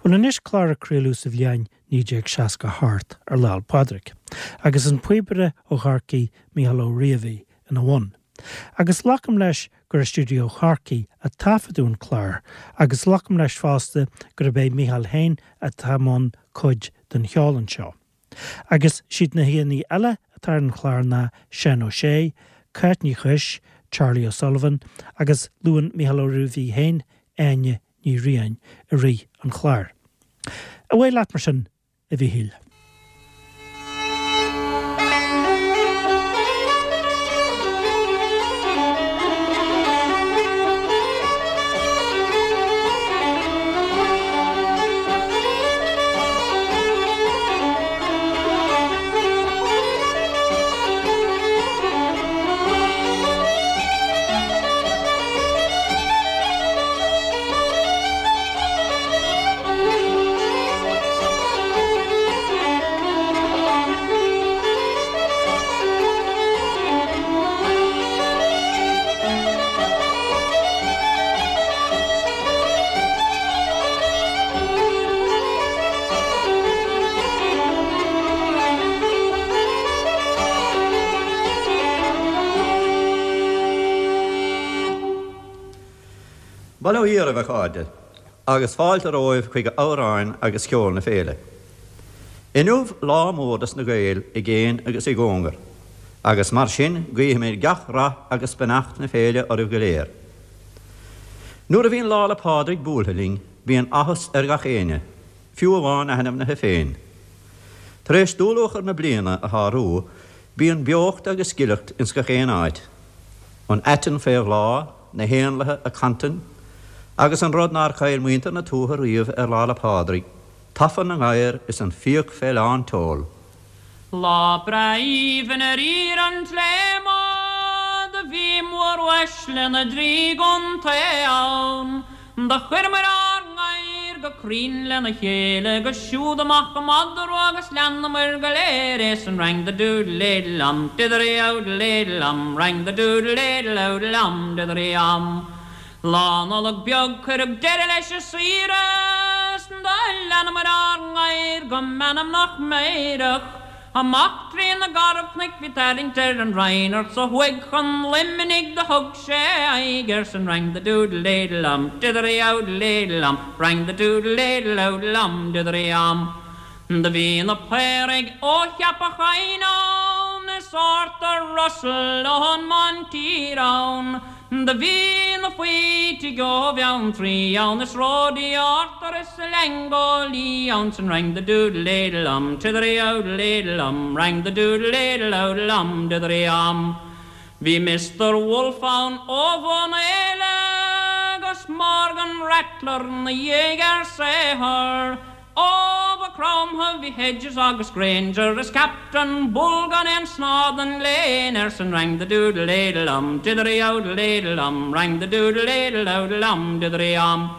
Bhuel anois clár a craoladh sa bhliain 1968 ar Lá 'le Pádraig, agus an píobaire ó Chorcaigh Mícheál Ó Riabhaigh ina bhun. Agus glacaim leis gur i stiúideo Chorcaí a taifeadadh an clár, agus glacaim leis fosta gurb é Mícheál féin atá i mbun cuid den cheol anseo. Agus siad na haíonna eile atá ar an chlár ná Seán Ó Sé, Cáit Ní Chuis, Charlie O'Sullivan agus luann Mícheál Ó Riabhaigh féin Áine Ní Riain i rith an chláir. Away leat mar sin, a Mhíchíl. Bail ó Dhia oraibh, a chairde, agus fáilte romhaibh chuig amhráin agus ceol na féile. Inniu lá mór dos na Gaeil i gcéin agus i gcóngar, agus mar sin guífimid gach rath agus beannacht na féile oraibh go léir. Nuair a bhíonn Lá 'le Pádraig buailthe linn, bíonn áthas ar gach éinne, fiú amháin na hainmnithe féin. Tar éis dúluachair na bliana a shárú, bíonn beocht agus gileacht ins gach aon áit. An aiteann fé bhláth, na héanlaithe ag cantain, agus an rud nár chaill muintir na tuaithe riamh ar Lá 'le Pádraig, tafann na ngadhar is an fiach fé lán tseoil. Lá breá aoibhinn ar íor an tSléama do bhí móruaisle na dtrí gcontae ann. Do chuireamair ár ngadhair go cruinn lena chéile 'gus siúd amach an madra agus leanamair go léir é san rang the doodle éidle am dithery owdle éidle am rang the doodle éidle owdle am dithery am. Lá Nollag beag cuireadh deireadh leis an saoire 's do leanamair ár ngadhair go meanmnach meidhreach. Amach trí na garbhchnoic bhí tarraingt ar an Reynard 's ó thuaidh chun Luimnigh do thug sé aghaidh ar san rang the doodle éidle am dithery owdle éidle am rang the doodle éidle owdle am dithery am. Do bhí na Paoraigh ó Cheapach Choinn ann is Arthur Russell ón mBantír ann. Do bhí na Faoitigh ó Bheanntraí ann is Roddy Arthur is Leaingeó Lee ann san rang the doodle éidle am tithery owdle éidle am rang the doodle éidle owdle am dithery am. Bhí Mister Wolfe ann ó Bhun Éile 'gus Morgan Rattler 'na dhiaidh ar saothar. Ó Mhaigh Chromtha bhí Hedges agus Grainger is Captain Bull gan aon snáth den léan air san rang the doodle éidle am dithery owdle éidle am rang the doodle éidle owdle am dithery am.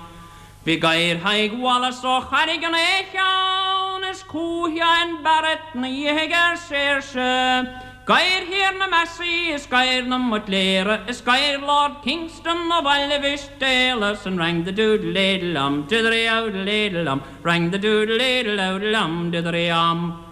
Bhí gadhair Thaidhg Wallace ó Charraig an Fhéich ann is Cú Sheáin Barrett 'na dhiaidh ar saoirse. Gadhair Thiarna Massey is gadhair na mBuitléara is gadhair Lord Kingston ó Bhaile Mhistéala san rang the doodle éidle am dithery owdle éidle am rang the doodle éidle owdle am dithery am.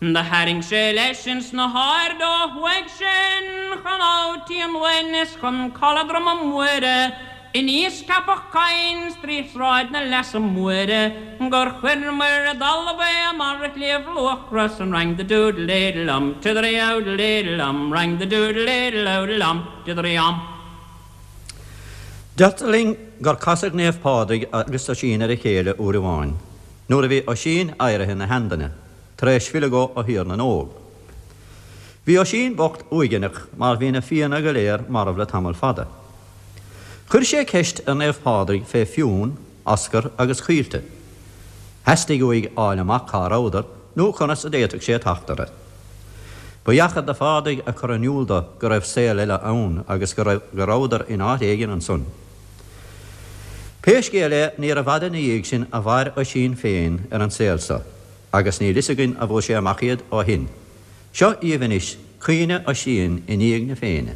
Do tharraing sé leis ins na haird ó thuaidh sinn chun Abha Tí an Uain is chun Caladh Droma Muire Aníos Ceapach Choinn 's trí Shráid na Leasa Móire gur chuireamair i dtalamh é i mbarra Shliabh Luachra san rang the doodle éidle am tithery owdle éidle am rang the doodle éidle owdle am dithery am. Deirtear linn gur casadh Naomh Pádraig agus Oisín ar a chéile uair amháin nuair a bhí Oisín éirithe ina sheanduine, tar éis filleadh dhó ó Thír na nÓg. Bhí Oisín bocht uaigneach mar bhí na Fianna go léir marbh le tamall fada. Chuir sé ceist ar Naomh Pádraig fé Fionn, Oscar agus Caoilte. Theastaigh uaidh fháil amach cá rabhadar nó conas a d'fhéadfadh sé teacht orthu. Ba dheachair do Phádraig a chur in iúl do go raibh saol eile ann agus go rabhadar in áit éigin ansan. Pé scéal é níorbh fhada ina dhiaidh sin a mhair Oisín féin ar an saol so agus níl fhios againn a bhfuair sé amach iad ó shin. Seo dhíbh anois caoineadh Oisín i ndiaidh na Féinne.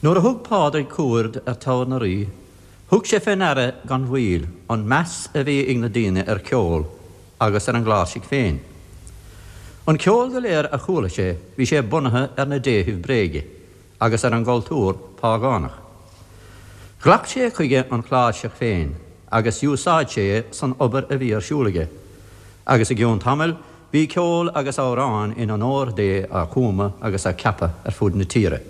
Nuair a thug Pádraig cuaird ar Toghar na Rí, thug sé fé ndeara gan mhoill an meas a bhí ag na daoine ar cheol agus ar an gcláirsigh féin. An ceol go léir a chuala sé bhí sé bunaithe ar na déithibh bréige agus ar an gcultúr págánach. Ghlac sé chuige an chláirseach féin agus d'úsáid sé é san obair a bhí ar siúl aige, agus i gcionn tamaill bhí ceol agus amhráin in onóir Dé á gcumadh agus á gceapadh ar fud na tíre.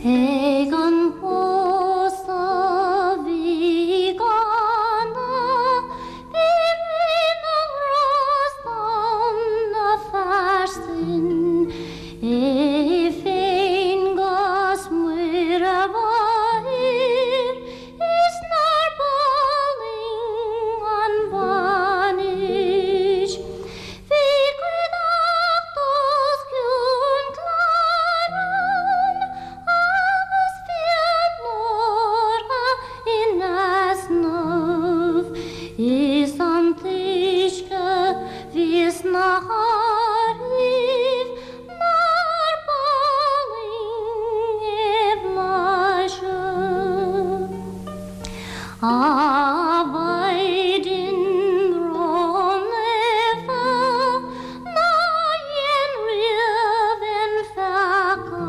Ag an bpósadh bhí i gCána bhí Rí na nGrást ann na fear sin é féin 'gus Muire Mháthair Is nár b'álainn an bhainis. Bhí cuideachta os cionn cláir ann agus fíonórtha in easnamh. Is an t-uisce bhí sna hárthaíbh Nár b'álainn é blaiseadh. A Mhaighdean ró-naofa ná dhein riamh aon pheaca,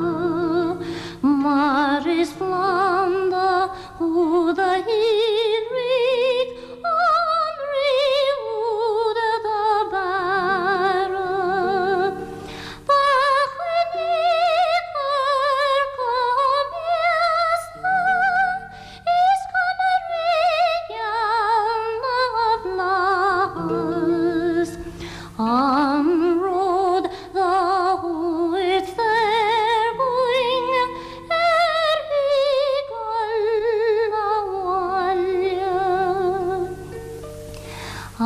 mar is planda thú do shíolraigh Ón Rí úd do bearradh. Ba choinnigh chomh míosa is cuma Rí gheal na bhFlaitheas. An ród do thabhairt soir dhúinn ar shiúl abhaile. A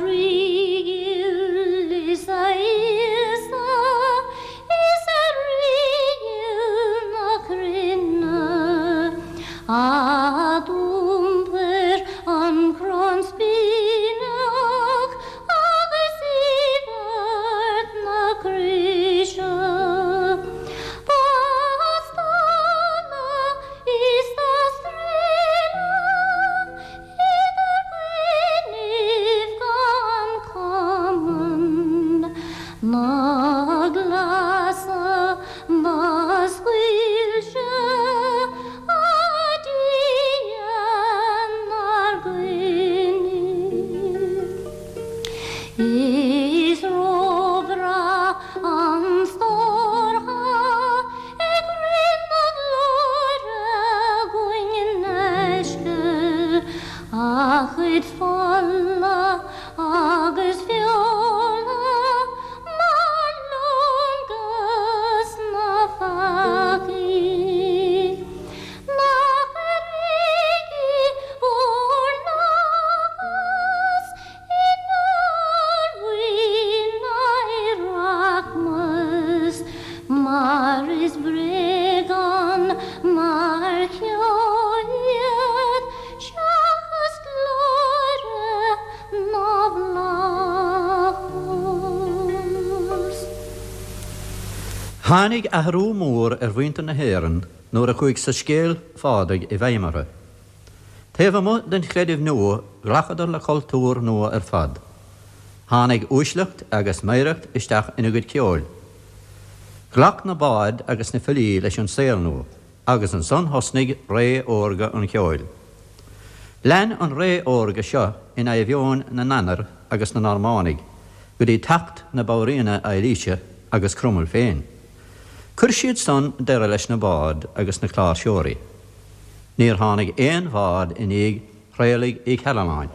Rí ghil is a Íosa is a Rí ghil na cruinne, a d'iompair an crann spíneach agus íobairt na croise. Ba stánadh is dá streilleadh idir gcoinnibh gan cumann na gleasa do scaoil sé a Dia 'nár gcoinnibh. Is róbhreá an stór thá ag Rí na Glóire againn in aisce, a chuid fola agus feola mar lón 'gus na peacaigh. Nach airigí bhur n-áthas inár bhfuil rachmas, mar is bréagán mar cheo iad seachas glóire na bhFlaitheas. Tháinig athrú mór ar mhuintir na hÉireann nuair a chuaigh soiscéal Phádraig i bhfeidhm orthu. Taobh amuigh den chreideamh nua ghlacadar le cultúr nua ar fad. Tháinig uaisleacht agus meidhreacht isteach ina gcuid ceoil. Ghlac na baird agus na filí leis an saol nua agus ansan thosnaigh ré órga an cheoil. Lean an ré órga seo in adhmheoin na nDanar agus na Normánaigh go dtí teacht na Banríona Eilíse agus Cromail féin. Chuir siad san deireadh leis na baird agus na cláirseoirí. Níor tháinig aon bhard i ndiaidh Thraolaigh Uí Chairealláin.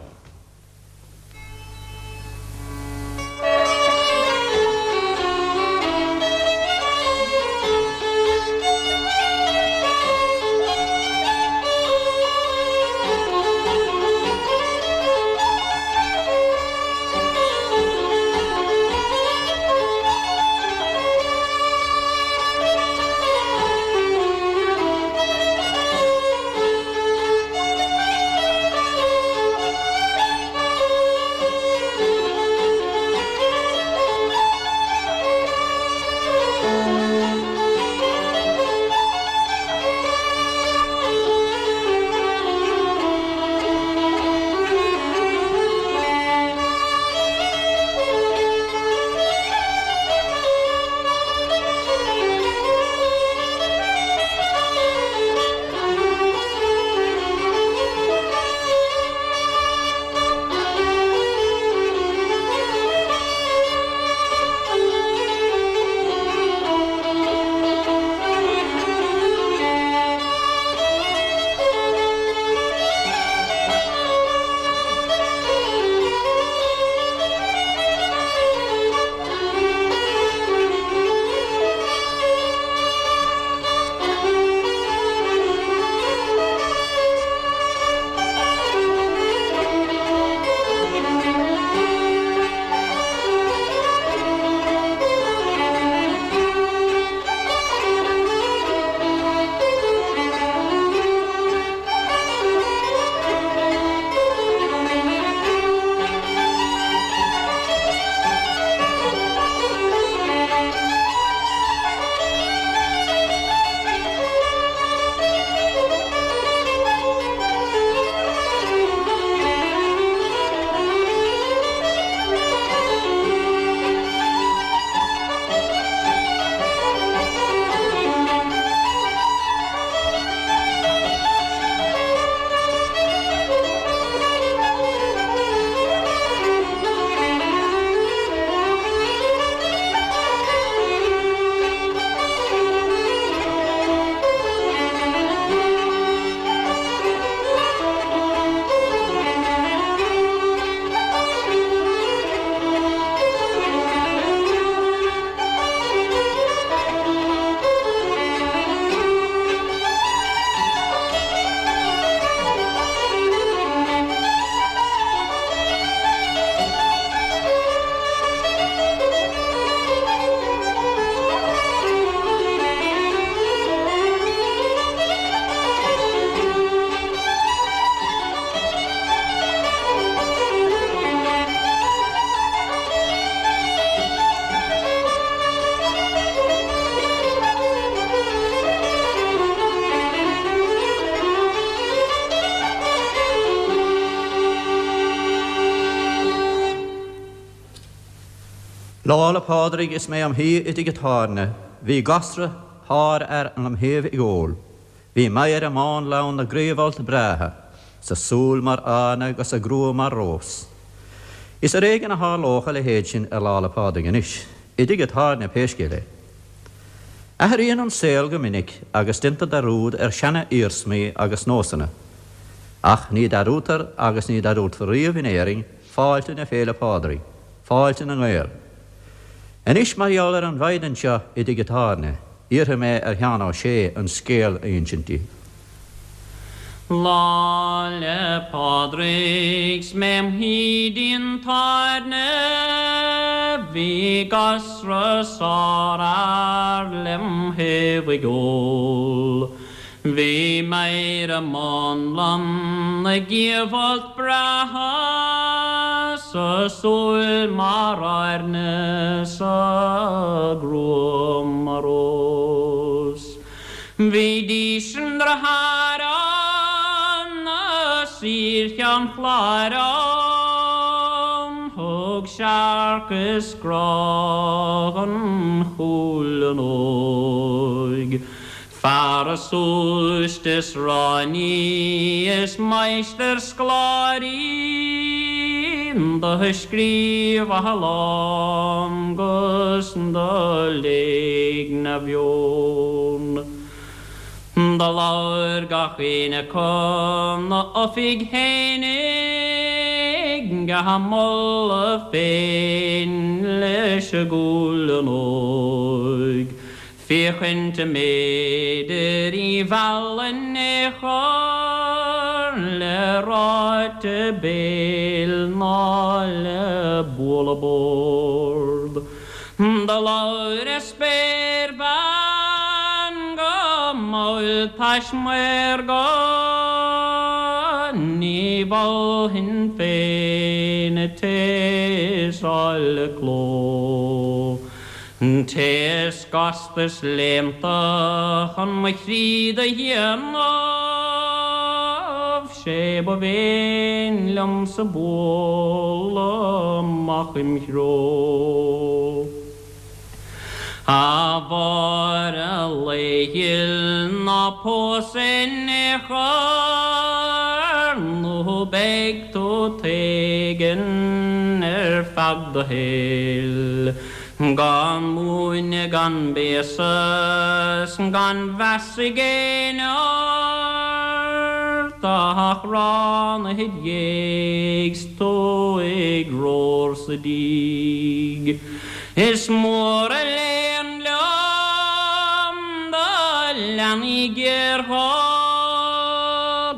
Lá 'le Pádraig is mé im shuí i dtigh an tábhairne, bhí gasra sárfhear lem thaobh ag ól. Bhí Máire mánlann na gcraobh-fholt breátha, 's a súil mar airne 'gus a grua mar rós. Is ar éigean a tharlódh a leithéid sin ar Lá 'le Pádraig anois, i dtigh an tábhairne pé scéal é. Athraíonn an saol go minic agus déantar dearúd ar seana-iarsmaí agus nósanna. Ach ní dearúdtar agus ní dearúdfar riamh in Éirinn fáilte na Féile Pádraig, fáilte na nGael. Anois mar gheall ar an mhaighdean seo i dtigh an tábhairne, iarrfaidh mé ar Sheán Ó Sé an scéal a insint daoibh. Lá 'le Pádraig 's mé im shuí dtigh an tábhairne bhí gasra sárfhear lem thaobh ag ól. Bhí Máire mánlann na gcliabhfholt breátha 's a súil mar airne 's a grua mar rós. Bhí dís an deartháir ann as Tír Cheann Chláir ann, thug searc is grá don chúileann óig. Fear a súist is ráiní is máistir scoláirí do scríobh a lán 'gus do léigh 'na mheon. Do labhair gach aon acu 'na oifig fhéinig á moladh féin leis an gcúileann óig. Féachaint an mb'fhéidir í mhealladh in aon chor le ráite béil ná le bualadh bord. Do labhair an spéirbhean go mall tais maorga, Ní mholfainn féin an té is áille cló. An té is gasta is léannta chun mo chroí do dhéanamh, 'sé ba mhéin liomsa bualadh amach im threo. A Mháire lae-ghil ná pós in aon chor nó beidh tú t'éigean ar feadh do shaoil. Gan múineadh gan béasa 's gan mheas ag éinne ort ach rán id dhiaidh 's tú ag romhar sa díg. Is mór an léan liom do leanaí géarghá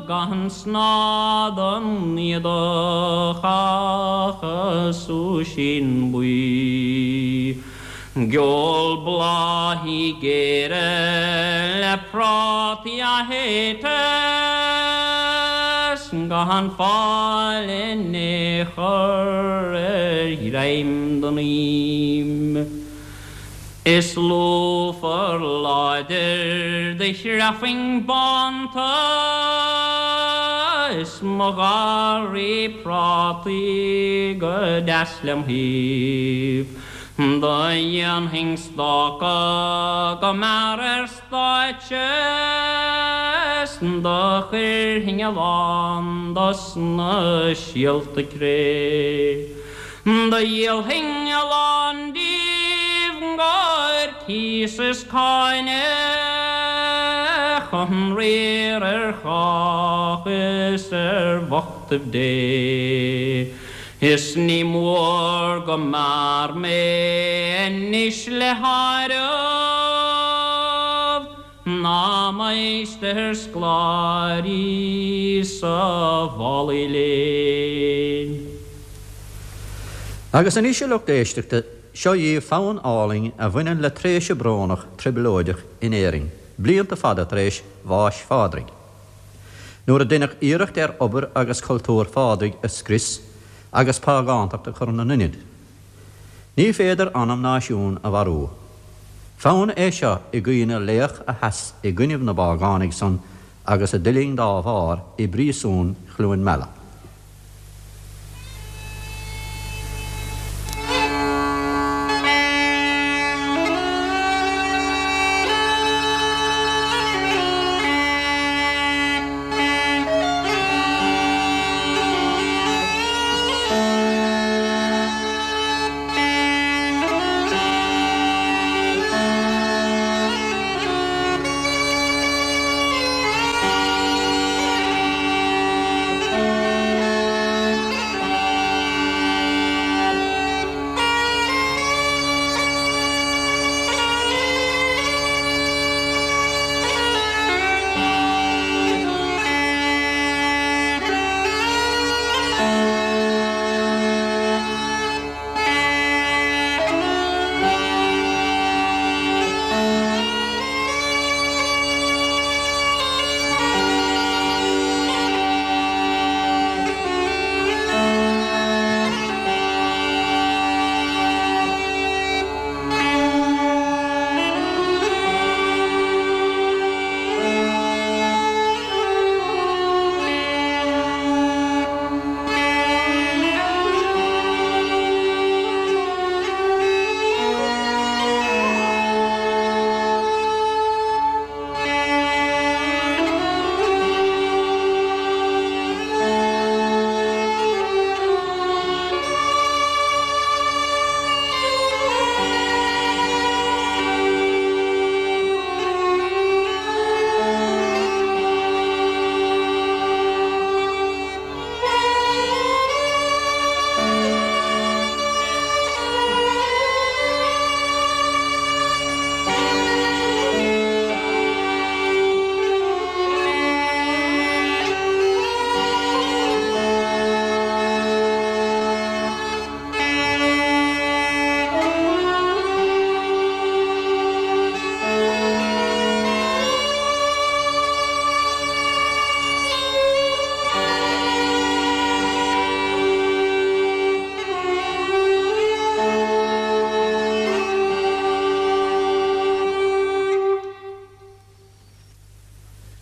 gan snáth don éadach ach a súisín buí. Geol bláthaí géara le prátaí athate 's gan fáil in aon chor ar ghreim den ím. Is lúfar láidir do chreafainn bánta is mo gharraí prátaí go deas lem thaobh. Do dhéanfainn stáca go mear ar stáitse 's do chuirfinn a lán dos na síolta cré. Do dhíolfainn a lán díobh 'gcomhair cíos is cáine chun riar ar chách is ar bhochtaibh Dé. Is ní mór go mear mé anois le háireamh ná máistir scoláirí sa mhálaí léinn. Agus anois, a lucht éisteachta, seo dhaoibh fonn álainn a bhaineann le tréimhse brónach trioblóideach in Éirinn, blianta fada tar éis bháis Phádraig. Nuair a deineadh iarracht ar obair agus cultúr Phádraig a scrios agus págántacht a chur ina n-ionad. Ní féidir anam náisiún a mharú. Fonn é seo i gcuimhne laoch a sheas i gcoinnibh na bpágánaigh san agus a d'fhuiling dá bharr i bpríosún Chluain Meala.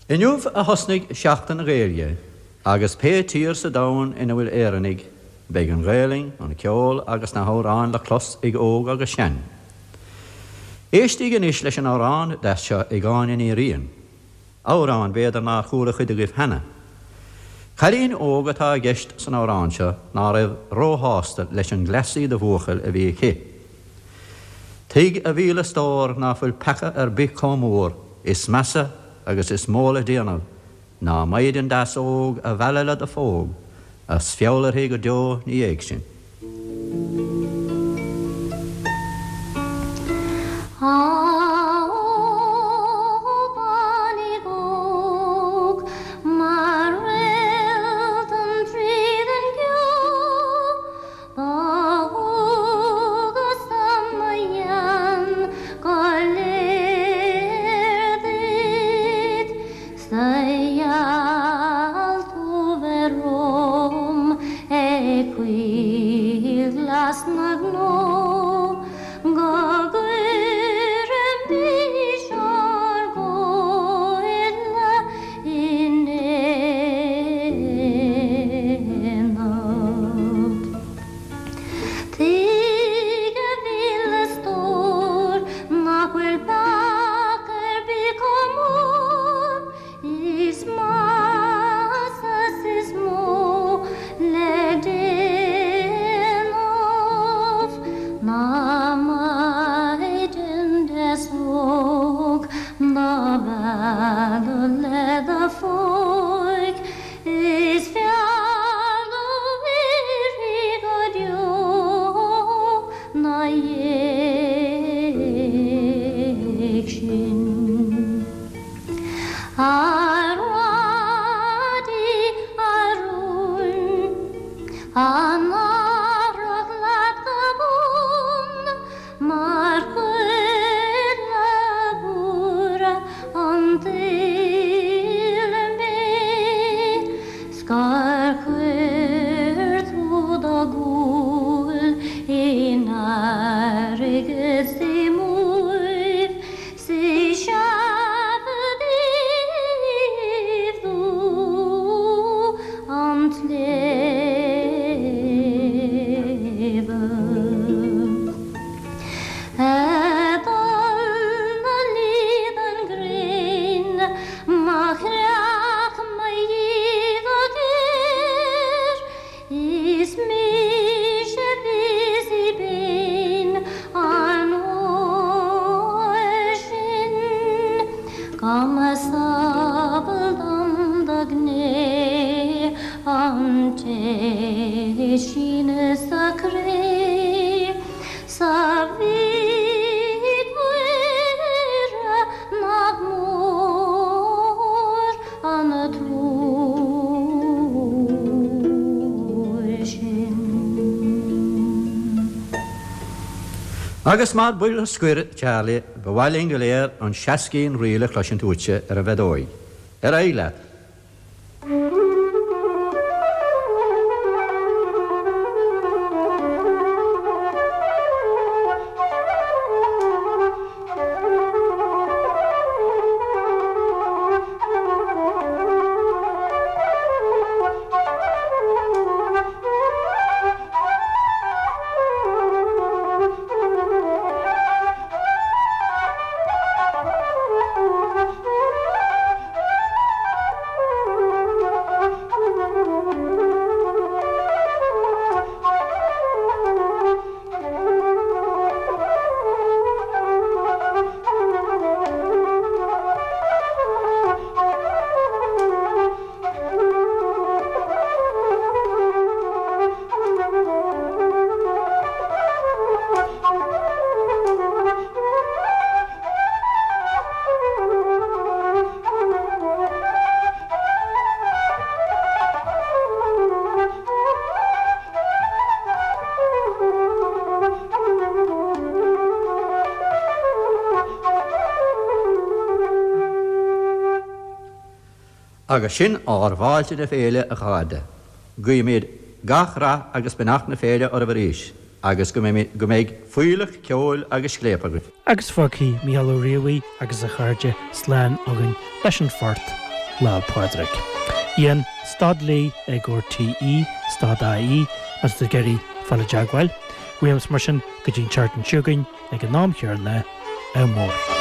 Inniu a thosnaigh Seachtain na Gaeilge agus pé tír sa domhan ina bhfuil Éireannaigh, beidh an Ghaelainn, an ceol agus na hamhráin le clos ag óg agus sean. Éistigí anois leis an amhrán deas seo ag Áine Ní Riain. Amhrán, b'fhéidir, nár chuala cuid agaibh cheana. Cailín óg atá i gceist san amhrán seo ná raibh róshásta leis an gcleasaí de bhuachaill a bhí aici. Tuig a mhíle stór ná fuil peaca ar bith comh mór, is measa agus is mó le déanamh ná maighdean deas óg a mhealladh le do phóg, a's feall uirthi go deo 'na dhiaidh sin. Á ó beainín óg mar réaltán tríd an gceo Ba dhualgas-sa mo ghean go léir duit 'S a gheall tú bheith romham ag coill ghlas na gcnó Go gcuirfimis ár gcomhairle in aonad. Tuig a mhíle stór nach bhfuil peaca ar bith chomh mór is measa 's is mó le déanamh ná maighdean deas óg do mhealladh le do phóig. Is feall uirthi go deo 'na dhiaidh sin. A Rhadi a rún, an athrach leat go bun, Mar choirle mhór an tsaoil mé 's gur chuir tú do dhúil in airgead 's i mbuaibh 's is seafóid dubh an tsléibhe. Ag dul 'na luí don ghréin, má chreach mo dhíth go géar, Is mise a bheas i bpéin an uair sin, Go mba samhail dom do ghné an té síneadh sa chré. 'S a Mhic Mhuire nach mór an truaighe sin. Agus mar bhuille scoir, Charlie, ba mhaith linn go léir an seascín ríl a chloisint uaitse ar an bhfeadóig. Ar aghaidh leat! Agus sin ár bhfáilte na féile, a chairde. Guímid gach rath agus beannacht na féile oraibh arís agus go mbeidh fuílleach ceoil agus scléip agaibh. Agus fágfaidh Mícheál Ó Riabhaigh agus a chairde slán againn leis an phort. Lá'l Pádraig. Ian stad lee ag RTÉ stad IE má tá tú ag iarraidh fáil i dteagmháil. Uaimse mar sin go dtí an tseachtain seo chugainn ag an am chéanna, ádh mór.